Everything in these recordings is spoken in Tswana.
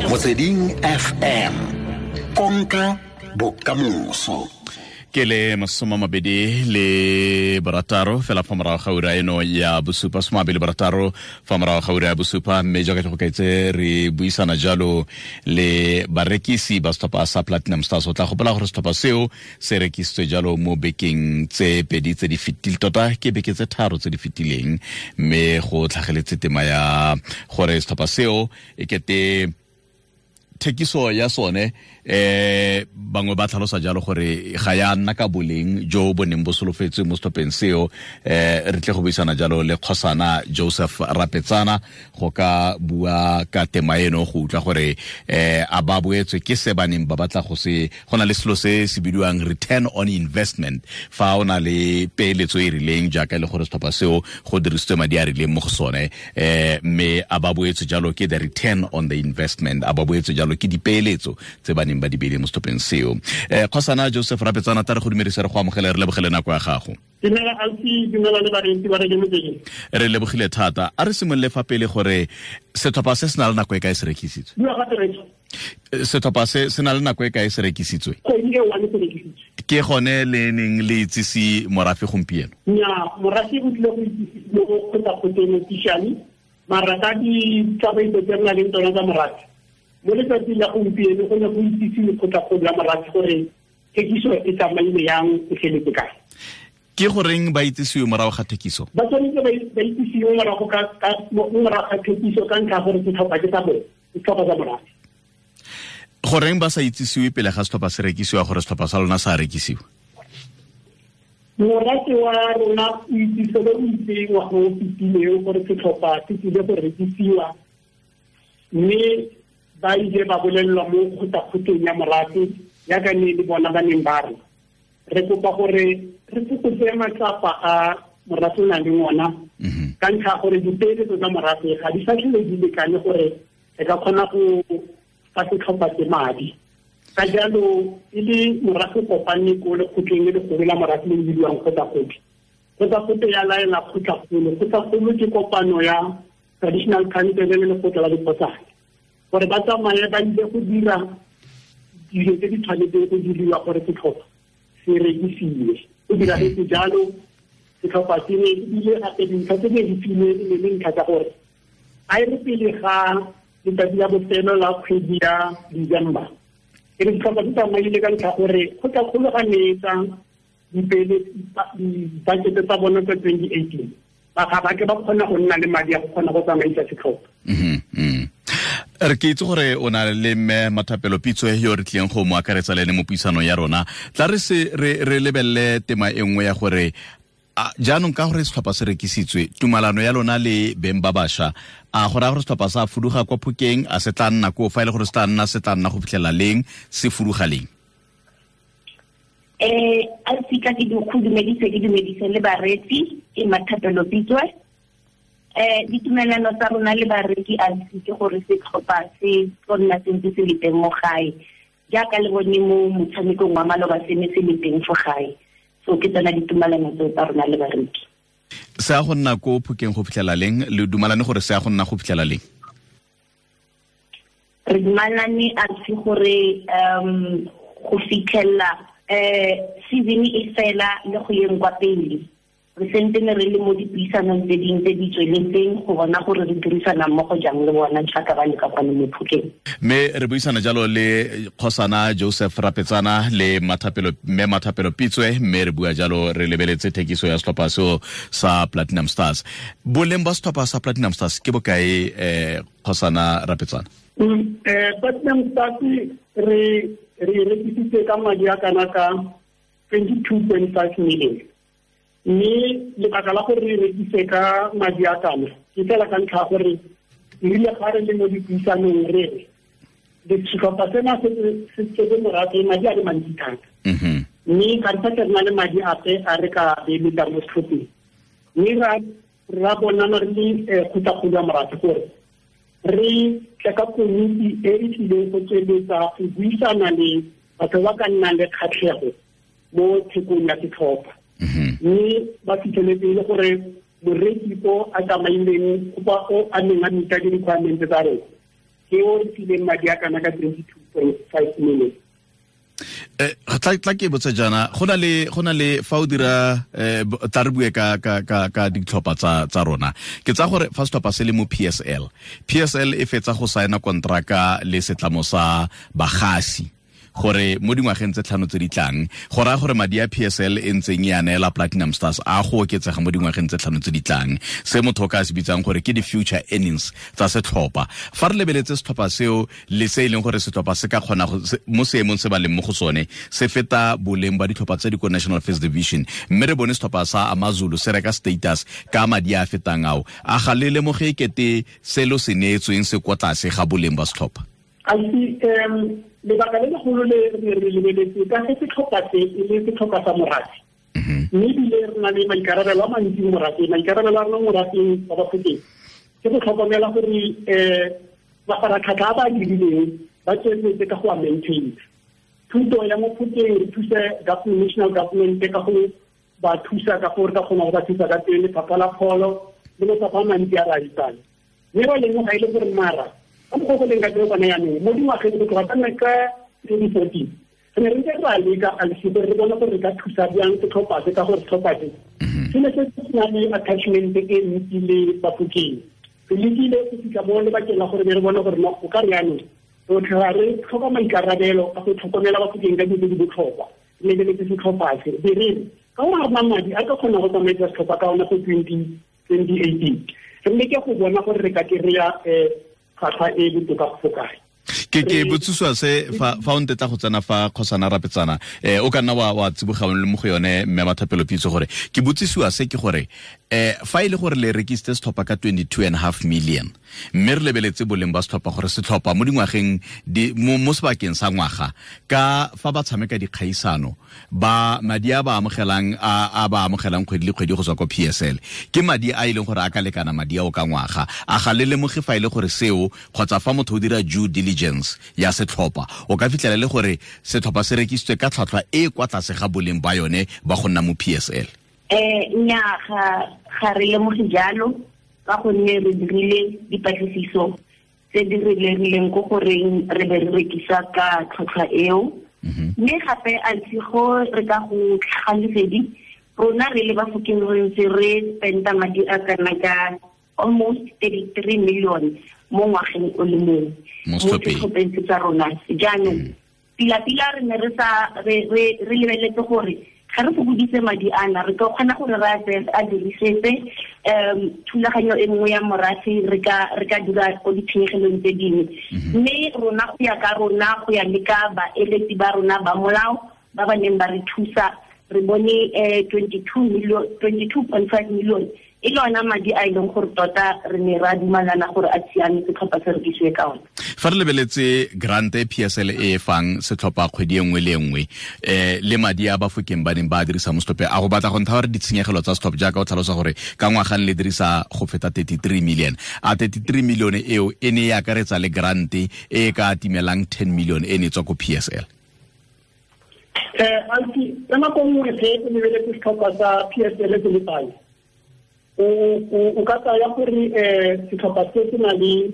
Motsweding FM, konka bokamoso. Ke le 26 fela fa morago ga ura eno ya bosupa, 26 fa morago ga ura ya bosupa. Mme jaaka ke go kaetse, re buisana jalo le barekisi ba setlhopha sa Platinum Stars. O tla gopola gore setlhopha seo se rekisitswe jalo mo bekeng tse pedi tse di fetileng, tota ke beke tse tharo tse di fetileng, mme go tlhageletse tema ya gore setlhopha seo e kete thekiso ya sone, bangwe ba tlhalosa jalo gore ga ya nna ka boleng jo bo neng bo solofetswe mo setlhopheng seo. Re tle go buisana jalo le kgosana Joseph Rapetsana go ka bua ka tema eno, go utlwa gore a ba boetswe ke se ba neng ba batla go se. Go na le selo se se bidiwang return on investment fa o na le peeletso e rileng, jaaka e le gore setlhopha seo go dirisitswe madi a rileng mo go sone, mme a ba boetswe jalo ke the return on the investment, a ba boetswe jalo ke dipeeletso tse ba neng ba di beile mo setlhopheng seo. Kgosana Joseph Rapetsana, tla re go dumedisa, re go amogele, re lebogele nako ya gago. Dumela ausi, dumela le bareetsi ba Radio Motsweding. Re lebogile thata. A re simolole fa pele gore setlhopha se se na le nako e kae se rekisitswe? Bua gape, Rachel. Setlhopha se se na le nako e kae se rekisitswe? Kgwedi e one se rekisitswe. Ke gone le neng le itsise morafe gompieno? Nya, morafe o tlile go itsise mo kgotlakgotleng officially, mara ka ditsamaiso tse re nang le tsona tsa morafe, mo letsatsing la gompieno go ne go itsise lekgotlakgolo la morafe gore thekiso e tsamaile yang, e feletse kae. Ke goreng ba itsisiwe morago ga thekiso? Ba tshwanetse ba itsisiwe mo morago ga thekiso ka ntlha ya gore setlhopha ke sa bone, ke setlhopha sa morafe. Goreng ba sa itsisiwe pele ga setlhopha se rekisiwa gore setlhopha sa lona sa rekisiwa? Morafe wa rona o itsise le o itse ngwaga o fetileng gore setlhopha se tlile go rekisiwa, mme ba ile ba bolelelwa mo kgotlakgotleng ya morafe, yaka ne le bona ba neng ba re re kopa gore re fokotse matsapa a morafe o nang le ona, ka ntlha ya gore dipeeletso tsa morafe ga di sa tlhole di lekane gore re ka kgona go fa setlhopha se madi. Ka jalo e le morafe kopane ko lekgotleng le legolo la morafe le le bidiwang kgotlakgotle. Kgotlakgotle ya laela kgotlakgolo. Kgotlakgolo ke kopano ya traditional council le lekgotla la dikgotsana gore ba tsamaye ba ile go dira dilo tse di tshwanetseng go diriwa gore setlhopha se rekisiwe. Go diragetse jalo, setlhopha se ne ebile gape dintlha tse ne di filwe e ne le ntlha tsa gore a e re pele ga letsatsi la bofelo la kgwedi ya December e re setlhopha se tsamaile, ka ntlha gore kgotlakgolo ga neetsa di-budget tsa bona tsa 2018, ba ga ba ke ba kgona go nna le madi a go kgona go tsamaisa setlhopha. Re ke itse gore o na le mme Mathapelo Pitso yo re tlileng go mo akaretsa le ene mo puisanong ya rona. Tla re se re lebelele tema e nngwe ya gore jaanong ka gore setlhopha se rekisitswe, tumalano ya lona le beng ba bašwa, a go raya gore setlhopha sa fuduga kwa Phokeng, a se tla nna koo? Fa e le gore se tla nna, se tla nna go fitlhela leng, se fuduga leng? A sika ke go dumedise, ke dumedise le bareetsi. Ke Mathapelo Pitswe. Ditumelano tsa rona le bareki a ke gore setlhopha se tlo nna sentse se le teng mo gae, jaaka le bone mo motshamekong wa maloba se ne se le teng fo gae. So ke tsona ditumelano tseo tsa rona le bareki. Se ya go nna ko Phokeng go fitlhela leng? Le dumalane gore se ya go nna go fitlhela leng? Re dumalane a se gore go fitlhela season e fela le go yeng kwa pele. Re sentene re le mo dipuisanong tse dingwe tse di tsweletseng go bona gore re dirisana mmogo jang le bona jaaka ba le ka kwano mo Phokeng. Mme re buisana jalo le kgosana Joseph Rapetsana le Mathapelo, mme Mathapelo Pitswe, mme re bua jalo re lebeletse thekiso ya setlhopha seo sa Platinum Stars. Boleng ba setlhopha sa Platinum Stars ke bokae, kgosana Rapetsana? Platinum Stars re rekisitse ka madi a kana ka 22.5 million, mme lebaka la gore re rekise ka madi a kana ke fela ka ntlha ya gore erile ga re le mo dipuisanong re re setlhopha sena se tsetse morafe madi a le mantsi thata, mme ga re sa re na le madi ape a re ka beeletsang mo setlhopheng, mme ra bonana re le kgotlakgolo ya morafe gore re tle ka komiti e e tlileng go tsweletsa go buisana le batho ba ka nnang le kgatlhego mo thekong ya setlhopha, mme ba fitlheletse e le gore moreki o a tsamaileng o a neng a meeta di-requirement tsa rona. Ke o re fileng madi a kana ka 22.5 million. Tla ke botsa jaana, go na le fa o dira tla re bue ka ditlhopha tsa rona. Ke tsa gore fa setlhopha se le mo PSL e fetsa go saena kontraka le setlamo sa bagasi gore mo dingwageng tse 5 tse di tlang, go raya gore madi a PSL e ntseng e a neela Platinum Stars a go oketsega mo dingwageng tse 5 tse di tlang, se motho o ka se bitsang gore ke di-future earnings tsa setlhopha. Fa re lebeletse setlhopha seo le se e leng gore setlhopha se ka kgona mo seemong se ba leng mo go sone se feta boleng ba ditlhopha tse di ko National First Division, mme re bone setlhopha sa AmaZulu se reka status ka madi a fetang ao, a ga le lemoge ekete selo se neetsweng se kwa tlase ga boleng ba setlhopha? Lebaka le legolo le re lebeletse ka ge setlhopha se e le setlhopha sa morafe, mme ebile re na le maikarabelo a mantsi mo morafeng. Maikarabelo a rona mo morafeng wa Bafokeng ke go tlhokomela gore mafaratlhatlha a ba a dirileng ba tsweletse ka go a maintain. Thuto ya mo Phokeng re thuse national government ka go ba thusa ka gore ka kgona go ba thusa ka teng, lefapha la pholo le mafapha a mantsi a re a itsang. Mme ba lemoga e le gore mara ka mokgwa go leng ka teng gone jaanong mo dingwageng go tloga ka 2014 re ne re ntse re a leka alisi gore re bone gore re ka thusa bjang setlhopha se, ka gore setlhopha se se ne se se na le attachment e ntsi le Bafokeng. Re lekile go fitlha mo lebakeng la gore be re bone gore no o ka re jaanong rotlhe ga re tlhoka maikarabelo a go tlhokomela Bafokeng ka dilo tse di botlhokwa, re lebeletse setlhopha se be re re ka gore ga rena madi a ka kgona go tsamaisa setlhopha ka ona go 2018 re leke go bona gore re ka kry-a tlhwatlhwa e botoka go kae. Ke botsiswa se fa o ntetla go tsena fa Kgosana Rapetsana, o ka nna wa tsiboga le mo go yone mme Mathapelo Pitso, gore ke botsisiwa se ke gore fa e le gore le rekisitse setlhopha ka 22.5 million, mme re lebeletse boleng ba setlhopha gore setlhopha mo dingwageng mo sebakeng sa ngwaga ka fa ba tshameka dikgaisano ba madi a ba amogelang a ba amogelang kgwedi le kgwedi go tswa ko PSL ke madi a e leng gore a ka lekana madi ao ka ngwaga. A ga le lemoge fa e le gore seo kgotsa fa motho o dira due diligence ya setlhopha o ka fitlhela le gore setlhopha se rekisitswe ka tlhwatlhwa e kwa tlase ga boleng ba yone ba go nna mo PSL? Nnyaa, ga re lemoge jalo, ka gonne re dirile dipatlisiso tse di re lerileng ko goreng re be re rekisa ka tlhwatlhwa eo. Mme gape a go re ka go tlhaga rona re le Bafokeng re ntse re spenda madi a kana ka almost 33 million mo ngwageng o le mongwe mo setlhopheng tsa rona. Jaanong pila-pila re ne re sa re lebeletse gore ga re fokoditse madi ana re ka kgona gore re a dirisetse thulaganyo e nngwe ya morafe, re ka dira ko ditshenyegelong tse dingwe. Mme rona go ya ka rona, go ya le ka baeletsi ba rona ba molao ba ba neng ba re thusa, re bone 22.5 million e le ona madi a e leng gore tota re ne ra dumalana gore a siame setlhopha se rekisiwe ka ona. Fa re lebeletse grant e PSL e fang setlhopha kgwedi e nngwe le nngwe le madi a Bafokeng ba neng ba dirisa mo setlhopheng, a go batla go ntsha gore ditshenyegelo tsa setlhopha jaaka o tlhalosa gore ka ngwagang le dirisa go feta 33 million, a 33 million eo e ne e akaretsa le grant e ka timelang 10 million e ne tswa ko PSL? Ka nako nngwe ge o lebeletse setlhopha sa PSL se le pale, o ka tsaya gore setlhopha se se na le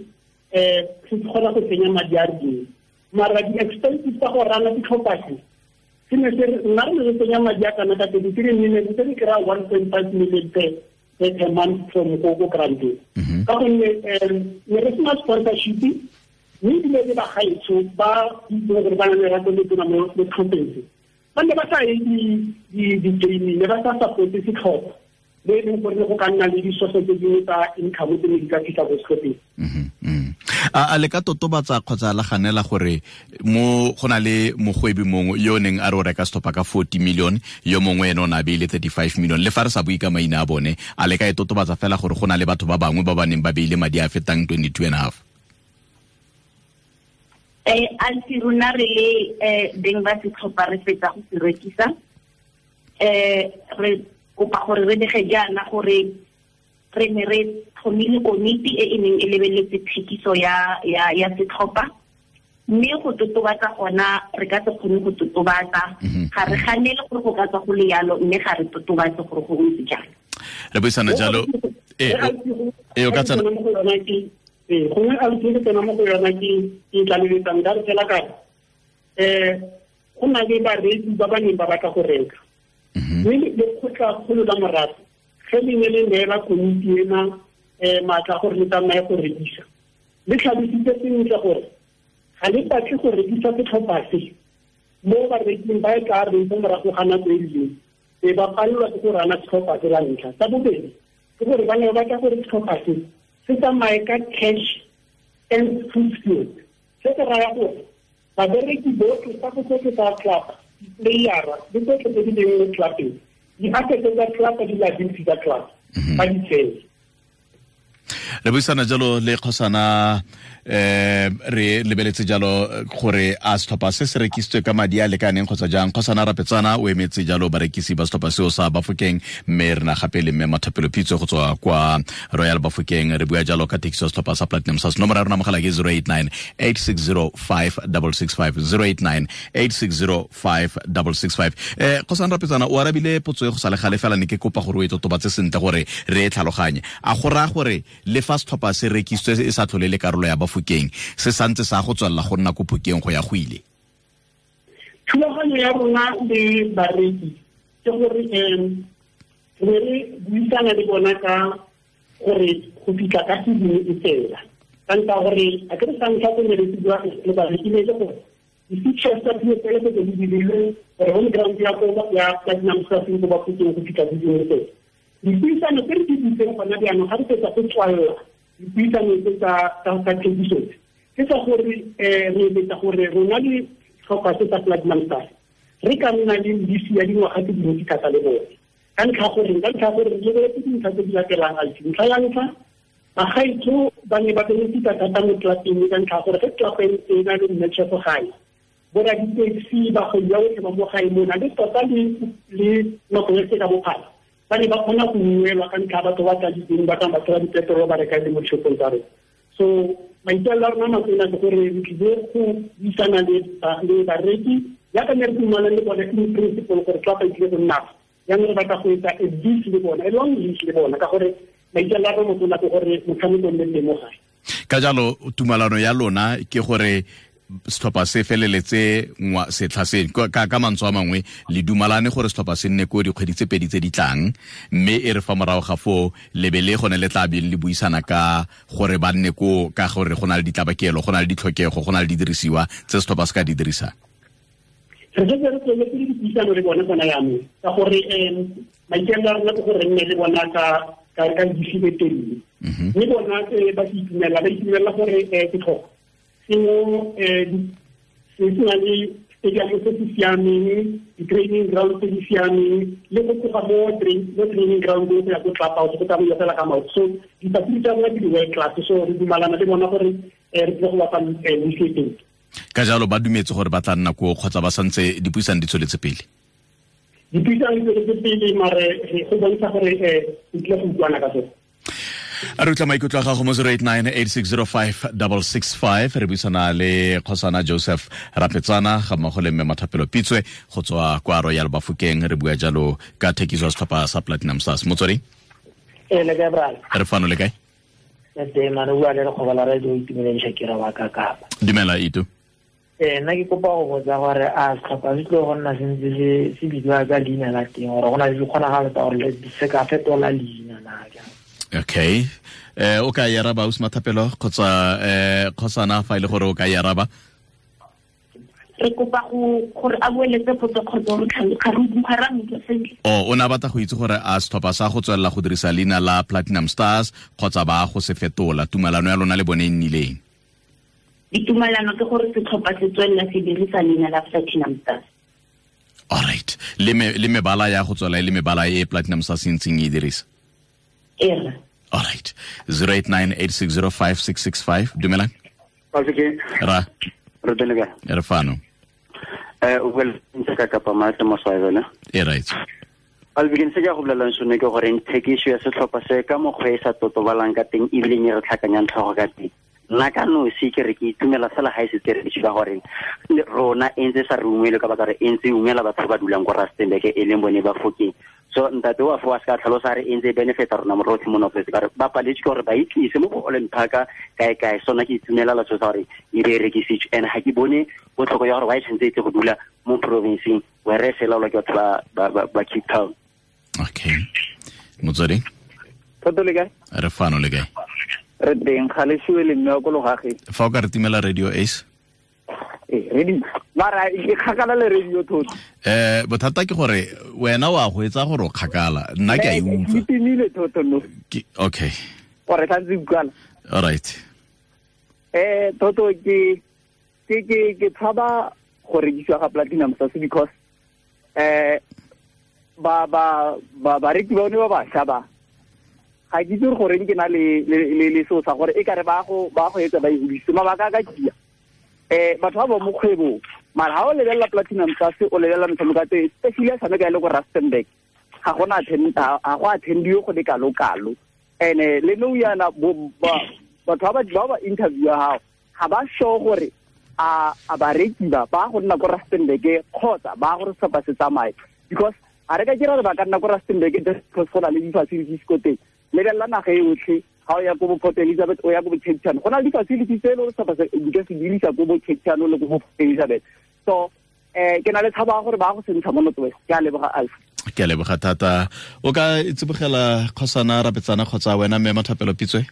se kgona go tsenya madi a rileng, mara di-expenses tsa go rana setlhopha se ne se nna re ne re tsenya madi a kana ka 33 million, se re kry-a 1.5 million per month from ko granteng, ka gonne ne re sena sponsorship, mme ebile le bagaetsho ba itseng gore ba na le lerato le tona mo setlhopheng se ba ne ba sa ye di-gaming, ne ba sa supporte setlhopha le e leng gore go ka nna le disoso tse dingwe tsa income tse ne di ka fitlha ko setlhopheng. A le ka totobatsa kgotsa la ganela gore mo go na le mogwebi mongwe yo neng a re o reka setlhopha ka 40 million, yo mongwe ene o ne a beile 35 million, le fa re sa bue ka maina a bone, a le ka e totobatsa fela gore go na le batho ba bangwe ba ba neng ba beile madi a fetang 22.5? Anti rona re le beng ba setlhopha re fetsa go se rekisa, re kopa gore re bege jaana gore re ne re tlhomile komiti e e neng e lebeletse thekiso ya setlhopha, mme go totobatsa gona re ka se kgone go totobatsa, ga re ganele gore go ka tswa go le yalo, mme ga re totobatse gore go ntse jang. Re buisana jalo o ka tsena Gongwe a ke tsena mo go yona ke tlaleletsang ka re fela ka go na le bareki ba ba neng ba batla go reka. Mme lekgotlakgolo la morafe ge le ne le neela komiti ena maatla gore le tsamaye go rekisa, le tlhalositse sentle gore ga le batle go rekisa setlhopha se mo bareking ba e tla reng fo morago ga nako e rileng e ba palelwa ke go rana setlhopha se la ntlha. Sa bobedi ke gore ba ne ba batla gore setlhopha se se tsamaye ka cash and food field. Se se raya gore babereki botlhe tsa go tsotlhe tsa club, di-playera le tsotlhe tse di leng mo clubeng, di-assets tsa club le di-liability tsa club ba di tseye. Re buisana jalo le kgosana, re lebeletse jalo gore a setlhopha se se rekisitswe ka madi a lekaneng kgotsa jang. Kgosana Rapetsana o emetse jalo barekisi ba setlhopha seo sa Bafokeng, mme re na gape le mme Mathapelo Pitso go tswa kwa Royal Bafokeng. Re bua jalo ka thekiso ya setlhopha sa Platinum Stars. Nomoro ya rona mogala ke 089 860 5665, 089 860 5665. Kgosana Rapetsana, o arabile potso e go sa le gale fela, ne ke kopa gore o e totobatse sentle gore re e tlhaloganye. A go raya gore le fa setlhopha se rekisitswe e sa tlhole le karolo ya Bafokeng, se santse sa go tswelela go nna ko Phokeng go ya go ile? Thulaganyo ya rona le bareki ke gore re re buisana le bona ka gore go fitlha ka season e fela. Ka ntlha gore a ke re sa ntlha go ne re bua le bareki le gore di-features tsa PSL tse di dirilweng gore home ground ya ko ya Platinum Stars ko Bafokeng go fitlha season e fela. Dipuisano tse re di butseng gona jaanong ga re fetsa go tswalela dipuisano tse tsa thekiso ke tsa gore re eletsa gore rona le setlhopha se sa Platinum Stars re ka nna le lease ya dingwaga tse dintsi thata le bone. Ka ntlha gore re lebeletse dintlha tse di latelang. Ntlha ya ntlha, bagaetsho ba ne ba benefita thata mo clubeng ka ntlha gore ge club e na le match go gae, boraditaxi bagwebi ba botlhe ba mo gae mona le tota le nako e se ka bophara ba ne ba kgona go ungwelwa ka ntlha batho ba tladitseng ba tlang batho ba dipetrolo ba reka le mo dishopong tsa rona. So maikaelelo a rona nako ena ke gore re tlile go buisana le bareki jaaka ne re dumalane le bone in principle gore club e tlile go nna jaanong re batla go etsa a lease le bona, a long lease le bona, ka gore maikaelelo a rona motona ke gore motshameko o nne teng mo gae. Ka jalo tumalano ya lona ke gore setlhopha se feleletse setlha se ka mantswe a mangwe le dumalane gore setlhopha se nne ko dikgwedi tse pedi tse di tlang, mme e re fa morago ga foo lebe le gone le tla beng le buisana ka gore ba nne ko, ka gore go na le ditlabakelo, go na le ditlhokego, go na le didirisiwa tse setlhopha se ka di dirisang. Re setse re tsweletse le dipuisano le bone gona jaanong ka gore maikaelelo a rona ke gore re nne le bona ka lease e telele. Mme bona ba se itumela, ba itumelela gore setlhopha sengwe se se na le stadium se se siameng, di-training ground tse di siameng, le go tloga mo training ground go ya ko club house go tsamaiwa fela ka maoto. So di-facility tsa bona ke di-world class, so re dumalana le bona gore re tlile go bapa lease e telele. Ka jalo ba dumetse gore ba tla nna koo kgotsa ba santse dipuisano di tsweletse pele? Dipuisano di tsweletse pele, mare go bontsha gore re tlile go utlwana ka sone. A re utlwa maikutlo a gago mo 089 8605 665. Re buisana le kgosana Joseph Rapetsana ga mmogo le mme Mathapelo Pitswe go tswa kwa Royal Bafokeng. Re bua jalo ka thekiso ya setlhopha sa Platinum Stars. Motswedi? Le kae, brother? Re fano, le kae? Le teng, mane o bua le lekgoba la radio Itumeleng Shakira wa Kakapa. Dumela, Itu. Nna ke kopa go botsa gore a setlhopha se tlile go nna sentse se bidiwa ka leina la teng, gore go na le dikgonagalo tsa gore se ka fetola leina na jang? Okay. O ka e araba ausi Mathapelo kgotsa kgosana fa e le gore o ka e araba? Re kopa gore a boeletse potso kgotsa ga re utlwa sentle. O ne a batla go itse gore a setlhopha sa go tswelela go dirisa leina la Platinum Stars kgotsa ba go se fetola, tumalano ya lona le bone e nnileng? Ditumalano ke gore setlhopha se tswelela se dirisa leina la Platinum Stars. All right. Le mebala ya go tswela e le mebala e Platinum Stars e ntseng e dirisa? Ee. All right. 089 8605 665. Dumelang. Ra. Re teng le kae? Re fano. O bua le ka Kapa Matle mo Swaziland. E right. Albikin se ke go bolelang sone ke gore thekiso ya setlhopha se ka mokgwa e sa totobalang ka teng ebile e re tlhakanyang tlhogo ka teng. Nna ka nosi ke re ke itumela fela ga e setse re ka gore rona e ntse sa re ungwele ka baka re e ntse ungwela batho ba dulang ko Rustenburg e leng bone ba Fokeng. So ntate wa fo a se ka tlhalosa re e ntse benefita rona morotlhe mo North West ka re ba paletse ke gore ba itlise mo go Holland Park kae kae. So nna ke itumela la so sa gore e be rekisitswe, and ga ke bone botlhoko ya gore why tshwanetse e tle go dula mo provinceng where se laolwa ke batho ba Cape Town. Okay, motswedi Thato le kae? Re fano le kae? Re teng, ga le siwe le mme wa ko logageng. Fa o ka re timela radio Ace. Radio mara ke kgakala le radio thotho. Bothata ke gore wena wa go etsa gore o kgakala, nna ke a e utlwa. Ke timile thotho no. Okay. Gore tla utlwala. All right. Thotho ke tshaba go rekisiwa ga Platinum Stars because ba bareki ba bone ba bašwa ba ga ke itse gore ke na le seo sa gore e kare ba go etsa ba e hodise mabaka a ka kia. Batho ba mo kgwebong mara ha o lebelela Platinum Stars o lebelela metshameko ya teng, especially ya tshameka e le ko Rustenburg ga go attendiwe go le kalo-kalo. And le nou yana batho ba ba interview ya gago ga ba sure gore a bareki ba go nna ko Rustenburg kgotsa ba gore setlhopha se tsamaye, because ga re ka kira re ba ka nna ko Rustenburg just because go na le di-facilities ko teng. Lebelela naga e yotlhe, ga o ya ko bo Port Elizabeth o ya ko bo Cape Town, go na le di-facilities tse e le gore setlhopha se di ka se dirisa ko bo Cape Town le ko bo Port Elizabeth. So ke na le tshabo ya gore ba go se ntsha mo North West. Ke a leboga Alpha. Ke a leboga thata. O ka tsibogela Kgosana Rapetsana kgotsa wena mme Mathapelo Pitswe?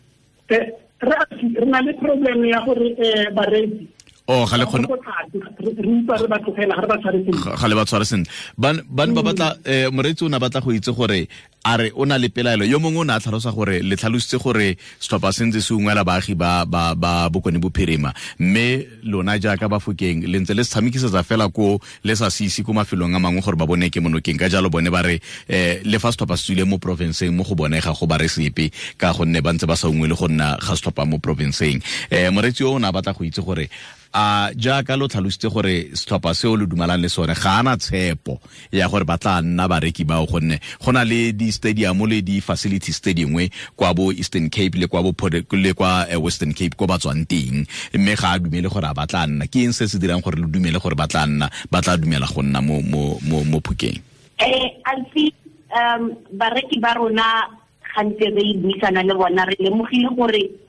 Re na le problem ya gore bareki ga le kgone re utlwa re ba tlogela, ga re ba tshware sentle. Ga le ba tshware sentle. Ban ba batla moreetsi o ne a batla go itse gore a re o na le pelaelo. Yo mongwe o ne a tlhalosa gore le tlhalositse gore setlhopha se ntse se ungwela baagi ba Bokone Bophirima, mme lona jaaka Bafokeng le ntse le se tshamekisetsa fela ko le sa se ise ko mafelong a mangwe gore ba bone ke monokeng. Ka jalo bone ba re le fa setlhopha se tswile mo provinceng mo go bone ga go ba re sepe ka gonne ba ntse ba sa ungwele go nna ga setlhopha mo provinceng. Moreetsi o ne a batla go itse gore a jaaka lo tlhalositse gore setlhopha seo lo dumalang le sone ga ana tshepo ya gore ba tla nna bareki bao, gonne go na le di-stadium le di-facilities tse dingwe kwa bo Eastern Cape le kwa bo le kwa Western Cape ko ba tswang teng, mme ga a dumele gore a ba tla nna. Ke eng se se dirang gore lo dumele gore ba tla nna, ba tla dumela go nna mo Phokeng? Alfi, bareki ba rona gantse re buisana le bona, re lemogile gore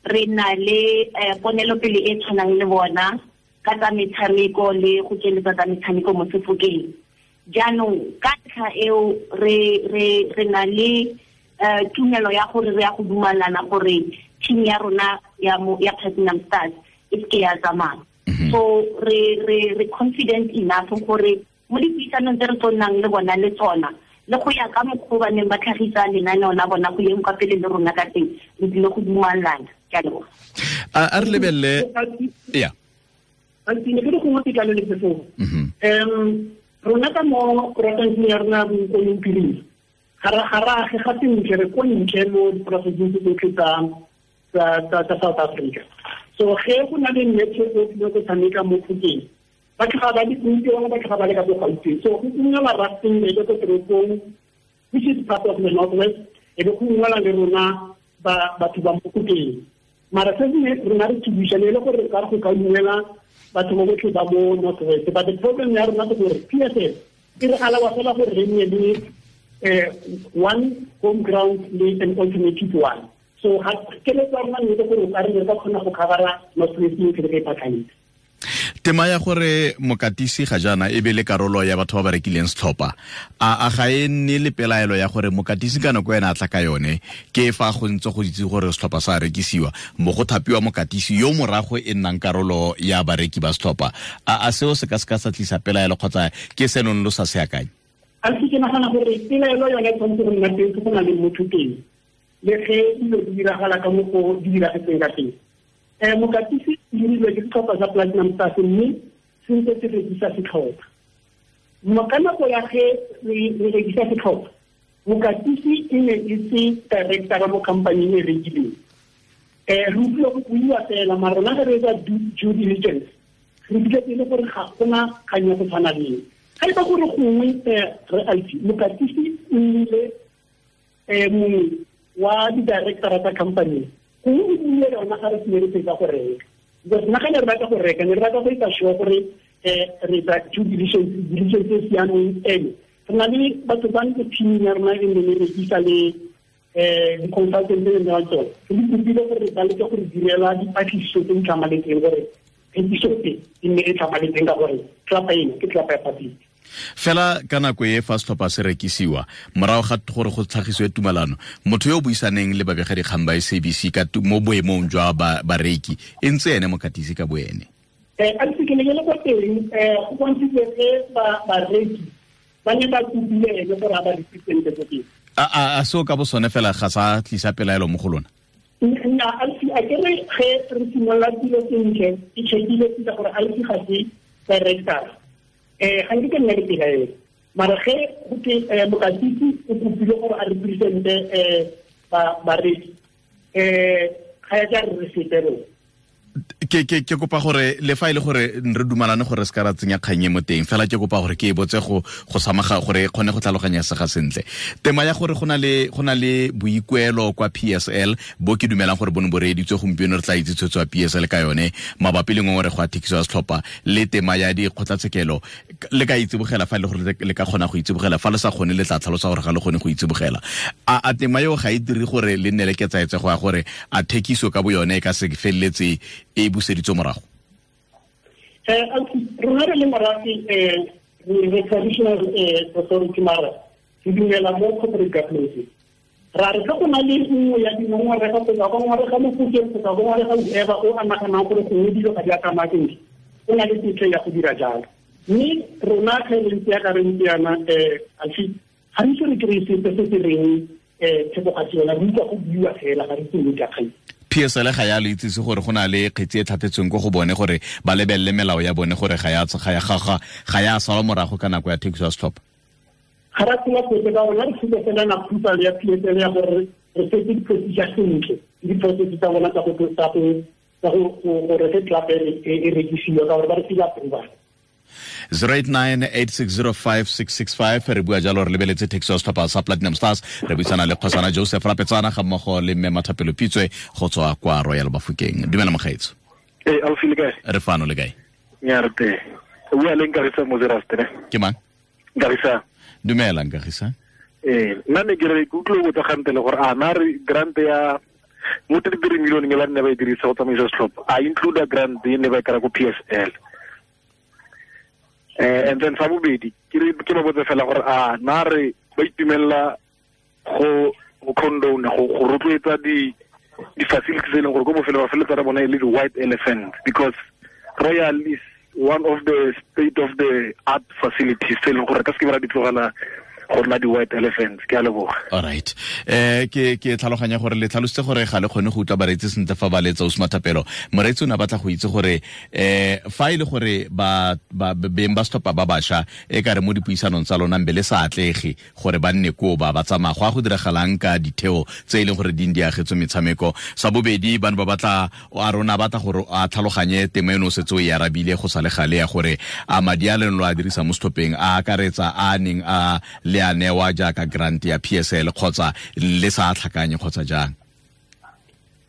re na le ponelopele e tshwanang le bona ka tsa metshameko le go tsweletsa tsa metshameko mo Sefokeng. Jaanong ka ntlha eo re na le tumelo ya gore re ya go dumalana gore team ya rona ya Platinum Stars e seke ya tsamaya. So re confident enough gore mo dipuisanong tse re tlo nnang le bona le tsona le go ya ka mokgwa ba neng ba tlhagisa lenaneo la bona go yeng kwa pele le rona ka teng, re tlile go dumalana. Ke a leboga. A re lebelele ya ne ke gongwe ke tlale le phetogo. Rona ka mo porofenseng ya rona Bokone Bophirima ga re age ga sentle, re ko ntle mo diporofenseng tse tsotlhe tsa South Africa. So ge go na le match o tlile go tshameka mo Phokeng, ba tlhoga ba le bontsi bangwe ba tlhoga ba le ka bo Gauteng. So go ungwela Rustenburg ko toropong, which is part of the North West, e be go ungwela le rona batho ba mo Phokeng. Mara se rona re tsubisane le gore ka go ka ungwela batho ba botlhe ba mo North West. But the problem ya rona ke gore PSL e re alawa fela gore re nne le one home ground le an alternative one. So ga keletso ya rona ne gore o ka re ka kgona go covera North West yotlhe re ka ipakanyetsa. Tema ya gore mokatisi ga jaana e be le karolo ya batho ba ba rekileng setlhopha, a ga e nne le pelaelo ya gore mokatisi ka nako ena a tla ka yone ke fa go ntse go itse gore setlhopha sa rekisiwa mo go thapiwa mokatisi yo morago e nnang karolo ya bareki ba setlhopha, a seo se ka sa tlisa pelaelo kgotsa ke senong lo sa se akanye? A se ke nagana gore pelaelo yone e tshwanetse go nna teng go na le motho teng le ge dilo di diragala ka mo go di diragetseng ka teng. Mokatisi o dirilwe ke setlhopha sa Platinum Stars mme se ntse se rekisa setlhopha. Ka nako ya ge re rekisa setlhopha, mokatisi e ne e se director mo company e rekileng. Re utlwile go buiwa fela, mara rona ge re etsa due diligence re fitlhetse e le gore ga gona kgang ya go tshwana le eo. Ga e ba gore gongwe re Alfi, mokatisi o nnile mongwe wa di-directora tsa company. Gongwe o buile yona ga re sene re fetsa go reka, because nna ga ne re batla go reka, ne re batla go etsa sure gore re etsa due diligence e siameng. Ene re na le batho ba ntse team ya rona e ne re rekisa le di-consultant tse ne tsone, re di kopile gore ba leke gore direla dipatlisiso tse di tlhamaletseng gore thekiso tse e nne e tlhamaletseng, ka gore tlapa eno ke tlapa ya public. Fela ka nako e fa setlhopha se rekisiwa, morago ga gore go tlhagisiwe tumalano, motho yo o buisaneng le babegadikgang ba SABC ka mo boemong jwa bareki e ntse ene mokatisi ka boene. A ntse ke ne ke le kwa teng, go bontshitse ge bareki ba ne ba kopile ene gore a ba represente ko teng. A seo ka bo sone fela ga sa tlisa pelaelo mo go lona? Nna a ke re ge re simolola dilo sentle, ke checkile sentle gore a itse ga se director, ga nke ke nna le pelaelo, mara ge go ke mokatisi o kopile gore a represente bareki, ga ya ka re sepe rona. Ke kopa gore le fa ile gore re dumalane gore se ka ra tsenya kgang e mo teng, fela ke kopa gore ke e botse go samaga gore e kgone go tlhaloganya sega sentle. Tema ya gore go na le boikuelo kwa PSL bo ke dumelang gore bone bo reeditswe gompieno, re tla itse tshwetso ya PSL ka yone mabapi le ngongorego ya thekiso ya setlhopha le tema ya dikgotlatshekelo. Le ka itsibogela fa e le gore le ka kgona go itsibogela, fa le sa kgone le tla tlhalosa gore ga le kgone go itsibogela. A tema eo ga e dire gore le nne le ketsaetsego ya gore a thekiso ka bo yone e ka se feleletse e buseditswe morago? Rona re le morafe, re traditional authority, mara re dumela mo corporate governance. Ra re ge go na le nngwe ya dingongorego kgotsa go ngongorega Mofokeng kgotsa go ngongorega whoever o a naganang gore gongwe dilo ga di a tsamaya sentle, o na le tetlo ya go dira jalo. Mme rona ge re ntse yaka re ntse yana, ga re ise re kry-e sepe se se reng theko ga se yona, re utlwa go buiwa fela, ga re itse nnete ya kgang. PSL ga ya le itsise gore go na le kgetsi e tlhatlhetsweng ko go bone gore ba lebelele melao ya bone gore ga ya salwa morago ka nako ya thekiso ya setlhopha? Ga ra tsela sepe ka rona, re tsile fela na approval ya PSL ya gore re setse di-procedure sentle, di-process tsa bona tsa gore ge club e rekisiwa, ka gore ba re file approval. 0898605665 re bua jalo re lebeletse thekiso ya setlhopha sa Platinum Stars. Re buisana le kgosana Joseph Rapetsana ga mmogo le mme Mathapelo Pitswe go tswa kwa Royal Bafokeng. Dumela mogaetso. Ausi le kae? Re fano, le kae? Nya re teng. O bua le Nkagisa Mozeraste, ne? Ke mang? Nkagisa. Dumela Nkagisa. Nna ne ke re ke utlwile go botsa gante le gore a na re grant ya mo 33 million e ba nne ba e dirisa go tsamaisa setlhopha, a include grant e ne ba e kry-a ko PSL? And then sa bobedi ke ba botse fela gore a na re ba itumelela go condone go rotloetsa di facilities e leng gore ko bofelo ba feletsa re bona e le di-white elephant, because Royal is one of the state of the art facilities tse e leng gore ka se ke ba di tlogela go nna di-white elephants. Ke a leboga. All right. Ke tlhaloganya gore le tlhalositse gore ga le kgone go utlwa bareetsi sentle fa ba letsa Osma Thapelo. Moreetsi o ne a batla go itse gore fa e le gore ba beng ba setlhopha ba bašwa e ka re mo dipuisanong tsa lona mbe le sa atlege gore ba nne koo ba tsamaya, go a go diragalang ka ditheo tse e leng gore di agetswe metshameko. Sa bobedi, ba ne ba batla a rona batla gore a tlhaloganye tema eno o setse o e arabile go sa le gale ya gore a madi a leng lo a dirisa mo setlhopheng a akaretsa a neng a le a newa jaaka grant ya PSL kgotsa le sa tlhakanye kgotsa jang?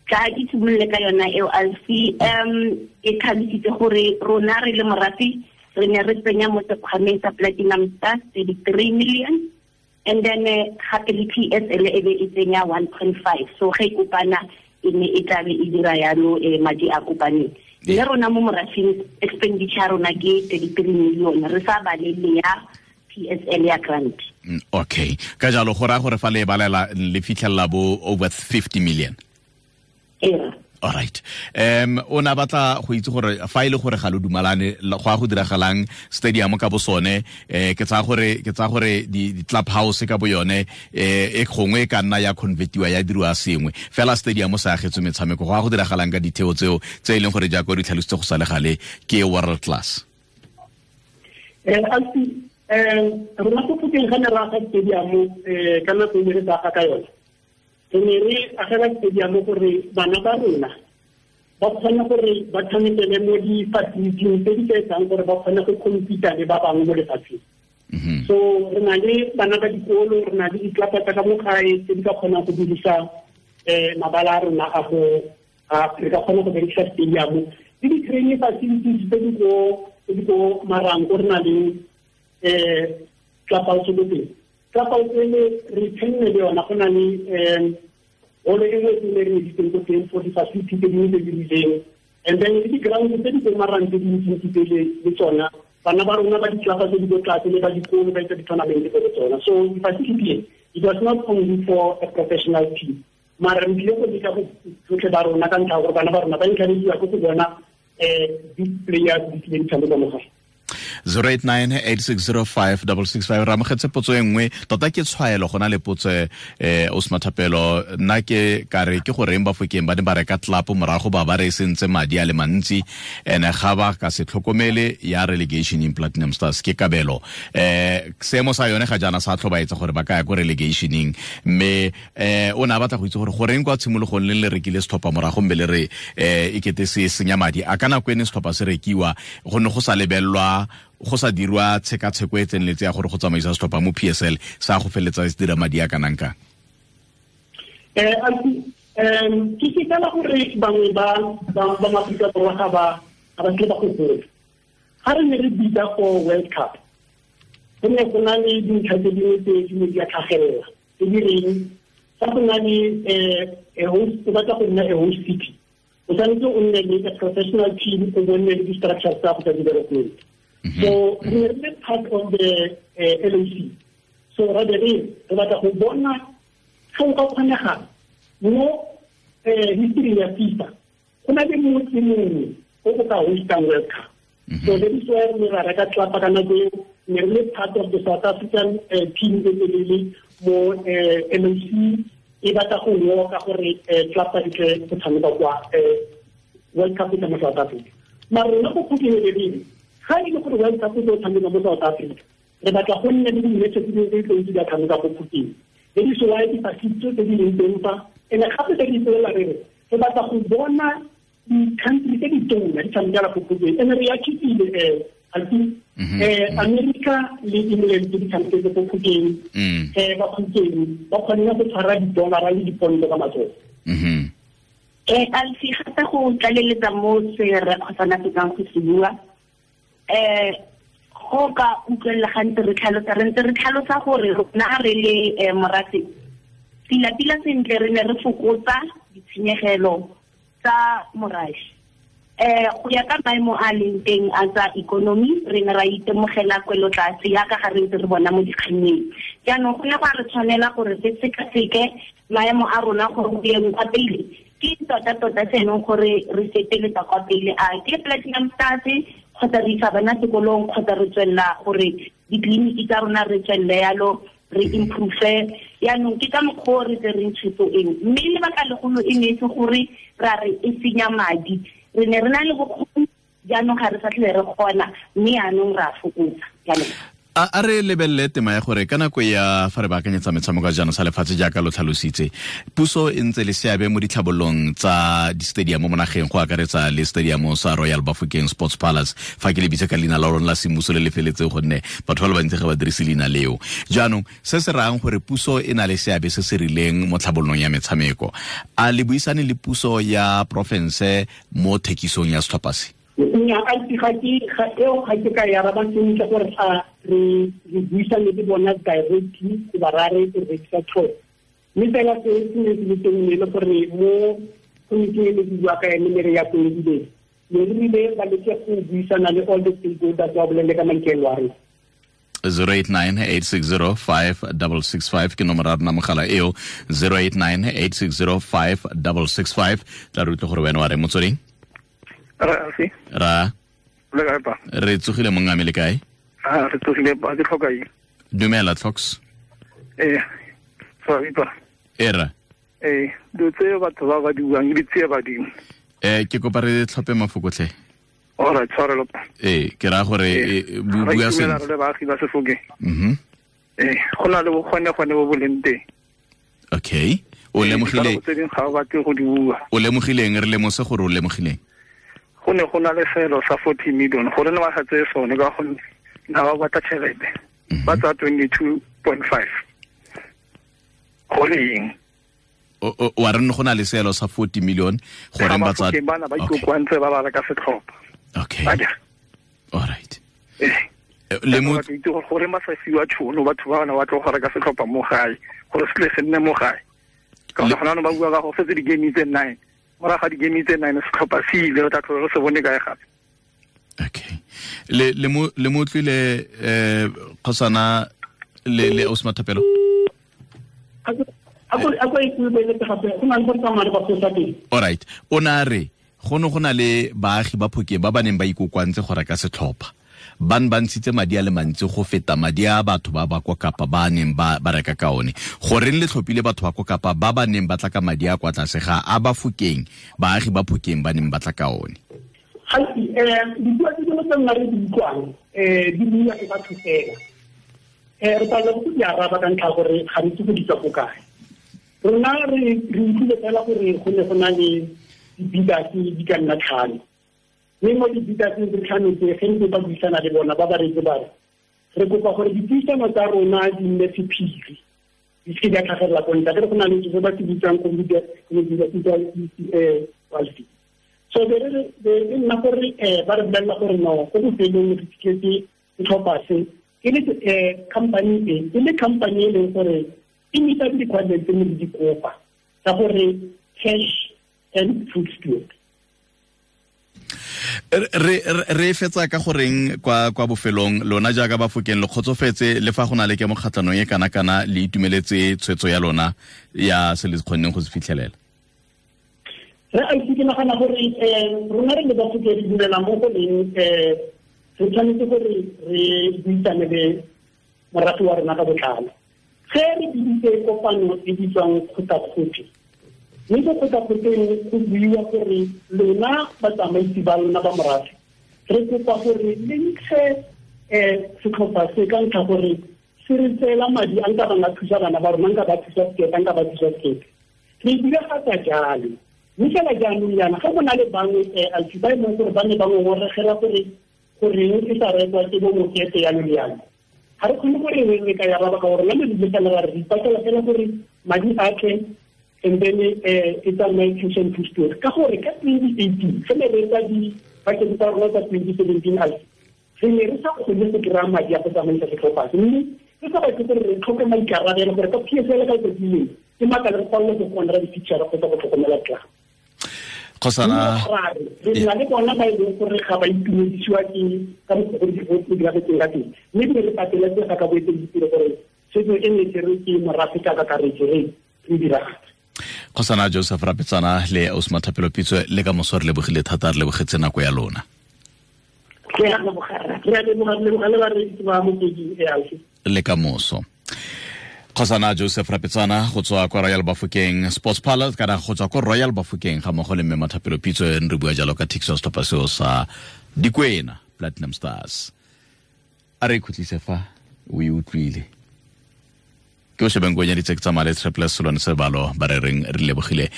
Ka ke simolole ka yona eo Alfi. E tlhalositse gore rona re le morafe re ne re tsenya mo sekgwameng sa Platinum Stars 33 million, and then gape le PSL e be e tsenya 1.5. So ge e kopana e ne e tlabe e dira yalo madi a kopaneng. Mme rona mo morafeng expenditure ya rona ke 33 million, re sa balele ya PSL ya grant. Okay, ka jalo go raya gore fa le balela le fitlhelela bo over 50 million. Yeah. All right. O na batla go itse gore fa ile gore ga lo dumalane go a go diragalang stadium ka bo sone, ke tsaya gore di club house ka bo yone e gongwe e ka nna ya convertiwa ya diriwa sengwe fela, stadium sa agetswe metshameko, go a go diragalang ka ditheo tseo tse e leng gore jaaka o di tlhalositse go sa le gale ke world class? Rona ko Phokeng ga ne re aga stadium ka nako e ne re sa aga ka yone, re ne re agela stadium gore bana ba rona ba kgone gore ba tshamekele mo di-facilities tse di ka etsang gore ba kgone go compete le ba bangwe mo lefatsheng. So re na le bana ba dikolo, re na le ditlapa tsa ka mo gae tse di ka kgonang go dirisa mabala a rona a go re ka kgona go berekisa stadium le di-training facilities tse di ko Marango re na le clubhouse ko teng. Clubhouse ele re tshenne le yona, go na le holo e nngwe e re editseng ko teng for di-facility tse dingwe tse di rileng. And then le di-ground tse di ko Marango tse dintsintsi tsele le tsona bana ba rona ba ditlelapa tse di ko tlase le ba dikolo ba etsa di-tournament ko tsona. So di-facility it was not only for a professional team, mara re tlile go leka go tsotlhe ba rona ka ntlha ya gore bana ba rona ba encourageiwa ke go bona big players di tlile di tshameka mo gae. 0898605665 re amogetse potso e nngwe tota ke tshwaelo go na le potso Osma Thapelo nna ke ka re ke goreng Bafokeng ba ne ba reka tlelapo morago ba ba re sentse madi a le mantsi ene ga ba ka se tlhokomele ya relegation in Platinum Stars ke kabelo seemo sa yone ga jaana sa tlhobaetsa gore ba ka ya ko relegationeng mme o ne a batla go itse gore goreng kwa tshimologong le le rekile setlhopha morago mme le re e kete se senya madi a ka nako ene setlhopha se rekiwa go ne go sa lebelelwa go sa dirwa tshekatsheko e tseneletse ya gore go tsamaisa setlhopha mo PSL sa go feletsa se dira madi a kanang kang? Ke ke fela gore bangwe ba Maaforika Borwa ga ba tle ba go gola. Ga re ne re bitsa for World Cup, go ne go na le dintlha tse dingwe tse di ne di a tlhagelela tse di reng fa go na le o batla go nna a host city, o tshwanetse o nne le a professional team, o bo nne le di-structures tsa go tsa development. So we are part of the LOC. So rather re batla go bona ga o ka kgonega mo history ya FIFA go na le motse mongwe o o ka hostang World Cup. So that is why re ra reka tlapa ka nako eo, ne re le part of the South African team e telele mo LOC e batla go woka gore tlapa e tle go tshameka kwa World Cup e mo South Africa. Mara rona go phokeng ga e le gore World Cup e tlo tshameka mo South Africa, re batla go nne le di-match tse dingwe tse di tlo tshameka go Phokeng. That is why di-facility tse di leng teng fa, and gape tse di ipolela re re batla go bona di-country tse di tona di tshamekela go Phokeng. And re achievile America le England tse di tshameketse go Phokeng, ba Phokeng ba kgonne go tshwara di-dollar le diponto ka matsogo. Alfi, gape go tlaleletsa mo se re kgosana fetsang go se bua, go ka utlwelela gantsi re tlhalosa re ntse re tlhalosa gore rona re le morafe pila-pila sentle re ne re fokotsa ditshenyegelo tsa morafe. Go ya ka maemo a leng teng a tsa ikonomi re ne ra itemogela kwelotlase yaka ga re ntse re bona mo dikgannyeng. Jaanong go ne go a re tshwanela gore re sekaseke maemo a rona gore go yeng kwa pele ke tota-tota se e leng gore re feteletsa kwa pele, a ke Platinum Stars kgotsa re isa bana sekolong kgotsa re tswelela gore ditleliniki tsa rona re tswelele yalo re improve. Yaanong ke ka mokgwa o re tsereng tshwetso eo, mme lebaka legolo e ne e se gore ra re e senya madi, re ne re na le bokgoni jaanong ga re sa tlhole re kgona, mme yaanong re a fokotsa. Jaanong A re lebelele tema ya gore ka nako ya fa re baakanyetsa metshameko ya jaanong sa lefatshe jaaka lo tlhalositse, puso e ntse le seabe mo ditlhabololong tsa di-stadium mo nageng go akaretsa le stadium sa Royal Bafokeng Sports Palace, fa ke le bitse ka leina la lona la semmuso le le feletseng gonne batho ba le bantsi ga ba dirise leina leo. Jaanong se se rayang gore puso e na le seabe se se rileng mo tlhabololong ya metshameko, a le buisane le puso ya porofense mo thekisong ya setlhopha se? Nnyaa, ga ke ka e araba sentle gore a re buisane le bona directly goba ra re rekisa tlhopha. Mme fela se se ne se le teng ne le gore mo committee e ne ke bua ka yone ne re ya koedileng, ne re rile ba leke go buisana le all the stakeholders ba bolele ka maikaelelo a rona. 0898605665 ke nomoro ya rona mogala eo, 0898605665. Tla re utlwe gore wena wa re motsweding. Ra re tsogile mongame le kae? Re tsogile ba ke tlhoka eng? Dumela Tlhoks. Sorry pa. Era. Dilo tse batho ba ba di buang di tsie badimo. Ke kopa re tlhophe mafoko tlhe. All right, tshwarelo. Ke raya gore bua sentle. Re baagi ba Sefokeng. Go na le bokgone gone bo bo leng teng. Okay. O lemogile. Tse dingwe ga o batle go di bua. O lemogileng, re lemose gore o lemogileng. Go ne go na le selo sa 40 million gore ne ba sa tseye sone ka gonne na ba batla tšhelete ba tsaya 22.5 gore eng? Wa re go na le seelo sa 40 million goreng ba tsa bana ba ikokoantse ba ba reka setlhopha. Okay. All right. Le mo itse gore ba sa fiwa tšhono batho ba bana ba tlo go reka setlhopha mo gae gore se tle se nne mo gae. Ka gore gona ba bua ka go fetse di-game tse 9. Morago ga di-game tse 9 setlhopha se ile re tla tlhola re se bone kae gape. Okay. Le mo utlwile kgosana le Osma Thapelo. All right. O na re go ne go na le baagi ba Phokeng ba ba neng ba ikokoantse go reka setlhopha. Ba ne ba ntshitse madi a le mantsi go feta madi a batho ba ba kwa Kapa ba neng ba reka ka one. Goreng le tlhophile batho ba kwa Kapa ba ba neng ba tla ka madi a kwa tlase ga a ba Phokeng, baagi ba Phokeng ba neng ba tla ka one. Gantsi dipuo tse dingwe tse nna re di utlwang di buiwa ke batho fela. Re palelwa ke go di araba ka ntlha gore ga re itse go di tswa ko kae. Rona re utlwile fela gore go ne go na le di-bidders di ka nna 5. Mme mo di-bidders tse 5 tse ge ntse ba buisana le bona ba ba reetse ba re re kopa gore dipuisano tsa rona di nne sephiri, di seke di a tlhagelela ko ntle. Akere go na le se ba se bitsang community. So be re nna gore ba re bolelela gore no ko bofelong re fitlhetse setlhopha se e le company e le company e leng gore e meeta di-requirements tse ne di kopa tsa gore cash and food steward. Re fetsa ka goreng kwa bofelong lona jaaka ba Phokeng le kgotsofetse le fa go na le ke mokgatlhanong e kana-kana le itumeletse tshwetso ya lona ya se le kgonneng go se fitlhelela? Re a itse ke nagana gore rona re le ba Phokeng re dumela mo go leng re tshwanetse gore re buisane le morafe wa rona ka botlalo. Ge re biditse kopano e bitswang kgotakgote, mme ko kgotakgoteng go buiwa gore lona batsamaisi ba lona ba morafe re kopa gore le ntshe setlhopha se ka ntlha gore se re tseela madi a nka bang a thusa bana ba rona, nka ba thusa sekete, nka ba thusa sekete. Re diragatsa jalo. Mme fela jaanong jaana ga go na le bangwe ba e leng gore ba ne ba ngongoregela gore goreng e sa rekwa ke bo mokete yalo le yalo. Ga re kgone gore re ka ya ba ka gore nna le fela ra re ipatlela fela gore madi a tle and then e tsamaye cash and food steward. Ka gore ka 2018 ge ne re etsa di-budget tsa rona tsa 2017 re ne re sa kgone go kry-a madi a go tsamaisa setlhopha se, mme re sa batle gore re tlhoke maikarabelo gore ka PSL ka letsatsi lengwe ke maaka re palelwe ke go honora di-feature kgotsa go tlhokomela club. Kgosana re na le bona ba e leng gore ga ba itumedisiwa ke ka mokgwa go di diragetseng ka teng, mme ebile re pateletsega ka boeteledipele gore setso e ne tserwe ke morafe ka kakaretso re diragatse. Kgosana Joseph Rapetsana le Osma Thapelo Pitso le ka moso re lebogile thata, re lebogetse nako ya lona. Re a leboga le bareetsi ba Motsweding Le ka moso. Kgosana Joseph Rapetsana go tswa kwa Royal Bafokeng Sports Palace kana go tswa kwa Royal Bafokeng ga mmogo le mme Mathapelo Pitso re bua jalo ka thekiso ya setlhopha seo sa Dikwena Platinum Stars. A re ikhutlise fa o e utlwile. Ke o shebeng go nyaditse ke tsamaya le Triple Solone Sebalo ba re reng re lebogile.